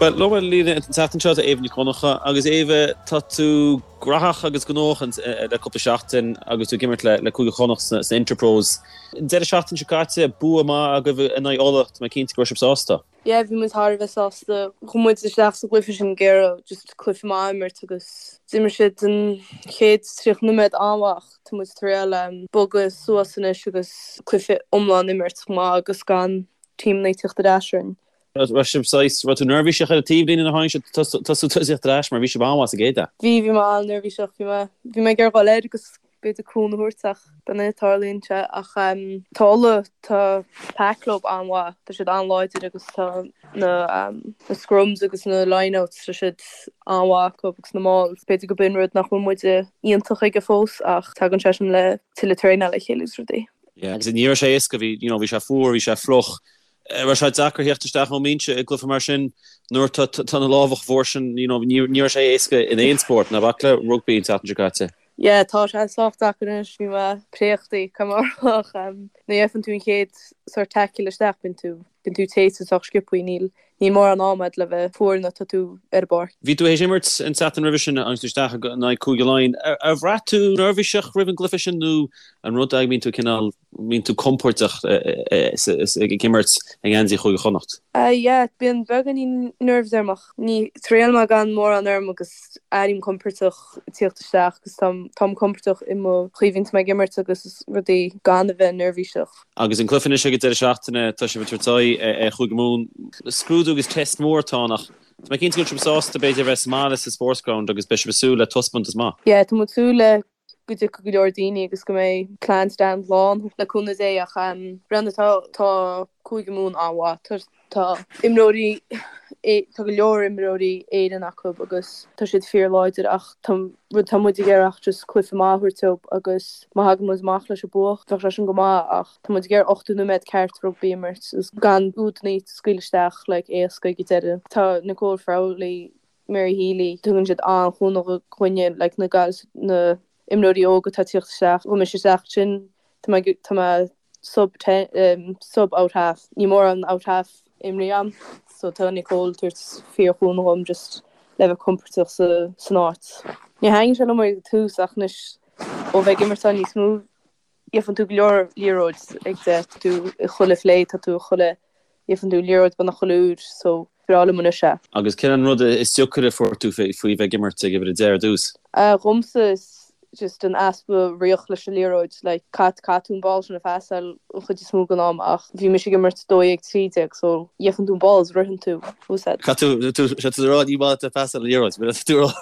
Bhuel, liom ar líne an tseachtain seo tá Éabha Nic Dhonncha agus Éabha, tá tú graitheach agus gnóthach le cúpla seachtain agus tú ag imirt le Cúige Chonnacht sna Interpros. An deireadh seachtaine seo caite, bua maith agaibh in aghaidh Uladh, tá mé cinnte go raibh sibh sásta. Yeah, bhí muid thar a bheith sásta. Chuaigh muid isteach sa gcluiche sin ag iarraidh just cluiche maith a imirt agus d'imir siad an chéad 30 nóiméad an-mhaith ach tá muid ag triail bogadh suas anois agus cluiche iomlán a imirt chomh maith agus gan teamanna ag tíocht ar ais orainn. Raibh sibh saghas, raibh tú neirbhíseach ar an taobhlíne nuair a tháinig siad tosú tosaíocht ar ais mar bhí sibh an-mhaith sa gcéad leath? Bhí, bhí mé an-neirbhíseach, bhí mé, bhí mé ag iarraidh dhul air agus b'fhéidir cúnamh a thabhairt ach b'in é, tarlaíonn sé ach tá Uladh, tá pack leo an-mhaith, tá siad an-láidir agus tá na na scrums agus na lineouts, tá siad an-mhaith acu agus na mauls. B'fhéidir go b'in rud nach bhfuil muide iontach aige fós ach tagann sé sin le tuilleadh traenáil le chéile agus rudaí. Yeah, agus ní raibh sé éasca, bhí, you know, bhí sé fuar, bhí sé fliuch, Raibh sé deacair theacht isteach ón mbinse i gcluiche mar sin nuair tá tá na lámha chomh fuar sin, you know, ní ní raibh sé éasca in aon spórt, ná bac le rugbaí an tseachtain seo caite. Yeah, tá sé sách deacair anois, bhí mé préachta, caithfidh mé a rá, ach nuair a gheibheann tú an chéad sort tackle isteach, bíonn tú, bíonn tú téite sách sciobthaí, níl, níl mórán ama agat le bheith fuar nuair atá tú ar an bpáirc. Bhí tú théis imirt an tseachtain roimhe sin agus tú isteach in aghaidh Cúige Laighean. Ar bhraith tú neirbhíseach roimh an gcluiche sin nó an rud é go mbíonn tú cineál mbíonn tú compordach ag imirt i ngeansaí Chúige Chonnacht? Yeah, bíonn beagáinín nerves orm ach ní triail mé gan mórán orm agus airím compordach ag tíocht isteach agus táim táim compordach i mo chaoi a bhíonns mé ag imirt agus rudaí gan a bheith neirbhíseach. Agus an cluiche anois ag an deireadh seachtaine, tá sibh ag tabhairt aghaidh ar Chúige Mumhan. Scrúdú agus test mór atá ann ach tá mé cinnte go bhfuil sibh sásta b'fhéidir a bheith sa mbaile sa Sportsground agus beidh sibh ag súil le taispeántas maith. Yeah, tá muid ag súil le go dtiocfaidh go leor daoine agus go mbeidh Clan Stand lán le cúnamh Dé ach Brendan tá tá Cúige Mumhan an-mhaith. Tá tá imreoirí tá go leor imreoirí Éireann acu agus tá siad fíor láidir ach tá rud tá muid ag iarraidh ach just cluiche maith a thabhairt dóibh agus má thagann muid amach leis an bua bheadh sé sin go maith ach tá muid ag iarraidh 80 nóiméad ceart rugbaí a imirt agus gan údanna a scaoileadh isteach like éasca ag an deireadh. Tá Nicole Frawley Mary Healy, tugann siad an-chúnamh dhúinne, like na gals, na imreoirí óga atá ag tíocht isteach, chuaigh mise isteach ansin, tá mé, tá mé sub ten, sub out half, níl mórán out half imrithe agam, so tá Nicole ag tabhairt fíor-chúnamh dhom just le bheith compordach sa, san áit. Níor thaitin sé liom ag tús ach anois ó bheith ag imirt ann níos mó, Gheibheann tú go leor liathróid ag de, tá tú i chuile phlé, tá tú i chuile, gheibheann tú liathróid beagnach chuile uair so breá liom anois é. Agus cén an rud is deacaire a fuair tú faoi bheith ag imirt ag uimhir 10 ar dtús? Dhomsa is just an easpa riocht leis an liathróid, like caith caithfidh tú an ball sin a phasáil an chuid is mó den am ach bhí mise ag imirt 12 13 so gheibheann tú an ball is ritheann tú, úsáid. Caithfidh tú, tá tú ag rá ní maith leat pasáil an liathróid, tá tú ag rá.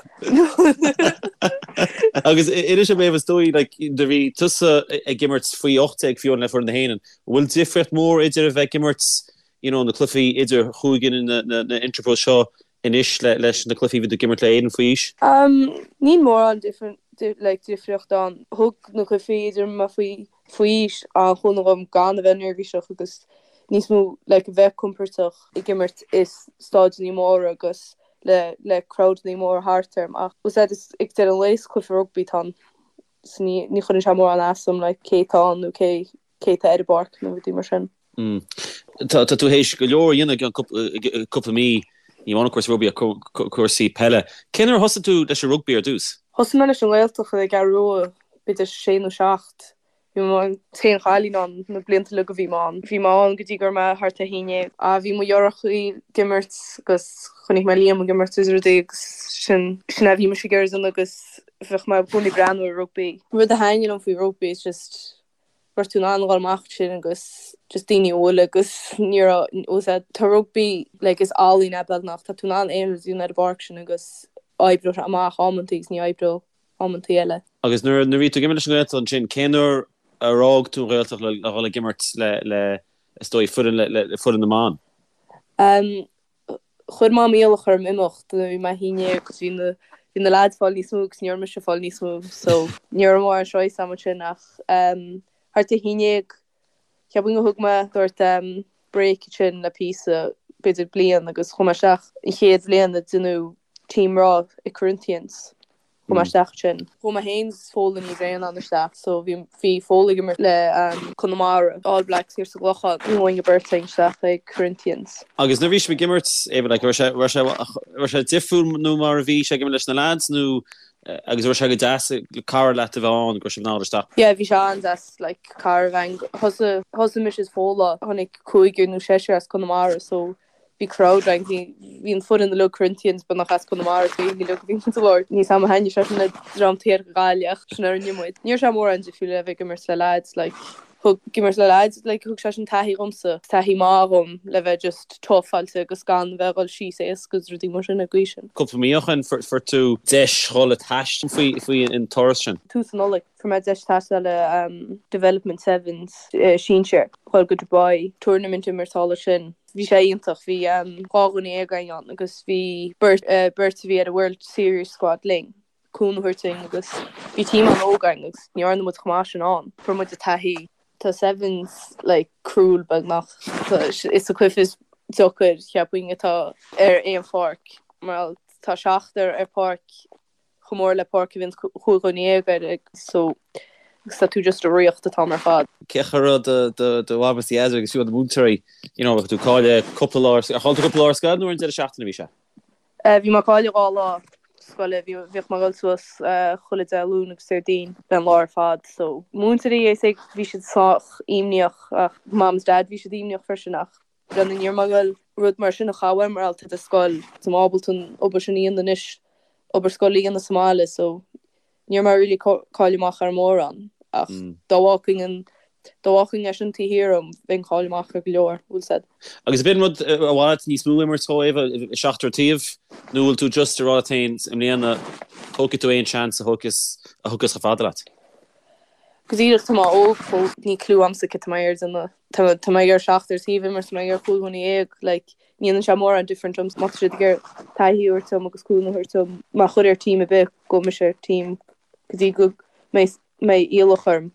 Agus inis dom Éabha is dóigh like do bhí tusa ag imirt faoi 18 fiú le foireann na hÉireann. An bhfuil difríocht mór idir a bheith ag imirt you know na cluichí idir chúige na na na Interpros seo anois le leis na cluichí a bhí tú ag imirt le Éirinn faoi aois? Um níl mórán different like difríocht ann. Thug na cluichí idir mé faoi faoi aois an-chúnamh dhom gan a bheith neirbhíseach agus níos mó like a bheith compordach ag imirt i staideanna móra agus le le crowdanna móra thart orm ach úsáid is ag deireadh an lae is cluiche rugbaí atá ann so ní ní chuireann sé mórán as dom like cé atá ann nó cé cé atá ar an bpáirc nó rudaí mar sin. Mm. Tá tá tú théis go leor a dhéanamh i gceann cúpla cúpla mí ní amháin cúrsaí rugbaí ach cúrsaí peile. Cén uair a thosaigh tú leis an rugbaí ar dtús? Thosaigh mé leis an nGaeltacht i gCeathrú Rua b'fhéidir sé nó seacht. Bhí mé an t-aon chailín ann na blianta uilig a bhí mé ann. Bhí mé ann go dtí go raibh mé thart ar haon dhéag. Bhí mo dheartháireacha ag imirt agus chonaic mé Liam ag imirt is rudaí agus sin sin a bhí mise ag iarraidh a dhéanamh agus bheadh mé i gcónaí ag breathnú ar rugbaí. Rud a thaitníonn liom faoi rugbaí is just go raibh tú in ann a dhul amach ansin agus just daoine a bhualadh agus ní raibh fhios a'd tá rugbaí like is ealaín é beagnach tá tú in ann aon rud a dhéanamh ar an bpáirc sin agus oibreoidh sé amach amantaí agus ní oibreoidh amantaí eile. Agus nuair a bhí tú ag imirt leis an nGaeltacht ansin, cén uair ar fhág tú an Ghaeltacht le dhul ag imirt le, le, is dóigh, foireann le, le foireann na mban? Um, chuir Mam iallach orm imeacht nuair a bhí mé 11 agus bhí na, bhí na lads fáil níos mó agus ní raibh mise fáil níos mó so ní raibh mórán choice agam ansin ach um, thart ar 11 cheapfainn gur thug mé sort um, break ansin le píosa b'fhéidir bliain agus chuaigh mé isteach an chéad bhliain a déanadh team mná i Corinthians. Chuaigh mé isteach ansin. Chuaigh mé féin is Fódhla Ní Bhraonáin isteach so bhí bhí Fódhla ag imirt le Conamara, All Blacks thiar sa gClochán. Chuaigh an bheirt againn isteach ag Corinthians. Agus nuair a bhí sibh ag imirt, Éabha, like, raibh sé raibh sé raibh sé difriúil nó mar a bhí sé ag imirt leis na lads nó agus raibh sé go deas cara leat a bheith ann go raibh sibh in ann dul isteach? Yeah bhí sé an-deas like cara a bheith ann. Thosaigh thosaigh mise is Fódhla, tháinig cúigear nó seisear as Conamara so bhí crowd againn, bhí bhí an foireann uilig Corinthians beagnach as Conamara so bhí uilig bhí muid ag labhairt níos ama thaitnigh sé sin le dream thiar Gaillimh ach sin a rinne muid. Ní raibh sé mórán difriúil le bheith ag imirt le lads like thug ag imirt le lads like thug sé sin taithí dhomsa, taithí maith dhom le bheith just tougháilte agus gan bheith ag dul síos éasca agus rudaí mar sin ag aois sin. Cúpla mí ó shin fuair tú deis dhul ag taisteal faoi faoi an turas sin. Tús na Nollag fuair mé deis taisteal le Development Sevens sinsir dhul go Dubai tournament imirt thall ansin. Bhí sé iontach. Bhí 12 dhuine againn ann agus bhí beirt beirt a bhí ar an World Series squad linn, cúnamh a thabhairt dúinn agus bhí team an-óg againn agus ní dhearna muid chomh maith sin ann. Fuair muid an taithí. Tá Sevens like cruel beagnach. Is an cluiche is deacair cheapfainn atá ar aon pháirc mar tá seachtar ar páirc chomh mór le páirc a bhíonn 15 dhuine air so agus tá tú just ag ritheacht an t-am ar fad. Cén chaoi a raibh do do mham is do dhaid agus fiú na múinteoirí you know tú cailleadh cúpla lá ar chaill tú cúpla lá ar scoil nó ar an deireadh seachtaine a bhí sé? Bhí mé ag cailleadh 2 lá scoile bhí bhíodh mé ag dul suas chuile Dé Luain agus Déardaoin le an lá ar fad so múinteoirí is ag bhí siad sách imníoch ach mam is dad bhí siad imníoch freisin ach Brendan ní raibh mé ag dul rud mar sin a chaitheamh mar gheall ar scoil. Tá mé ábalta an obair sin a dhéanamh anois, obair scoile a dhéanamh sa mbaile so ní raibh mé really cailleadh amach ar mórán ach dá bhfágfainn an dá bhfágfainn é sin taobh thiar dhom bheinn cailleadh amach ar go leor, bhfuil 's a'd. Agus ab in rud ar mhaith leat níos mó imirt dhó, Éabha, seachtar taobh nó bhfuil tú just ag rá leat féin i mbliana tógfaidh tú aon seans a thiocfas a thiocfas chomh fada leat? Go díreach tá mé óg fós níl clue a'msa cad tá mé ag déanamh. Tá mé ag iarraidh seachtar taobh imirt, tá mé ag iarraidh 15 dhuine, like, ní dhéanann sé mórán different dom, má tá siad ag iarraidh taithí a thabhairt dom agus cúnamh a thabhairt dom, má chuir ar team ar bith, gabhfaidh mise ar team go dtí go mbeidh mbeidh iallach orm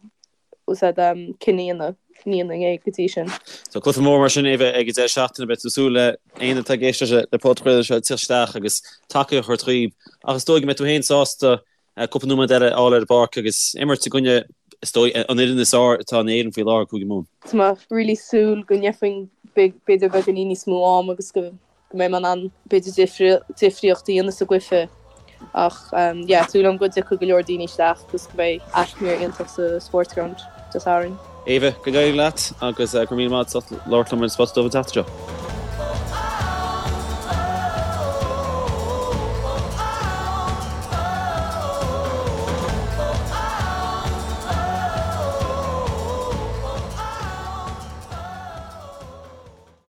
úsáid um, cinneadh a dhéanamh, ní dhéanfainn é go dtí sin. So cluiche mór mar sin é bheith ag an deireadh seachtaine, beidh tú ag súil le éinne atá ag éisteacht le podchraoladh seo teacht isteach agus tacaíocht a thabhairt dhaoib ach is dóigh go mbeidh tú féin sásta cúpla nóiméad eile a fháil ar an bpáirc agus imirt i gcoinne, is dóigh, an fhoireann is fearr atá in Éirinn faoi láthair, Cúige Mumhan. Tá mé really súil go ndéarfainn b'fhéidir beagáinín níos mó am agus go mbeidh mé in ann b'fhéidir difríocht a dhéanamh sa gcluiche ach yeah súil agam go dtiocfaidh go leor daoine isteach agus go mbeidh atmaisféar iontach sa Sportsground Dé Sathairn. Éabha, go n-éirí leat agus go raibh míle maith agat as ucht labhairt liom ar an Spota Dubh an tseachtain seo.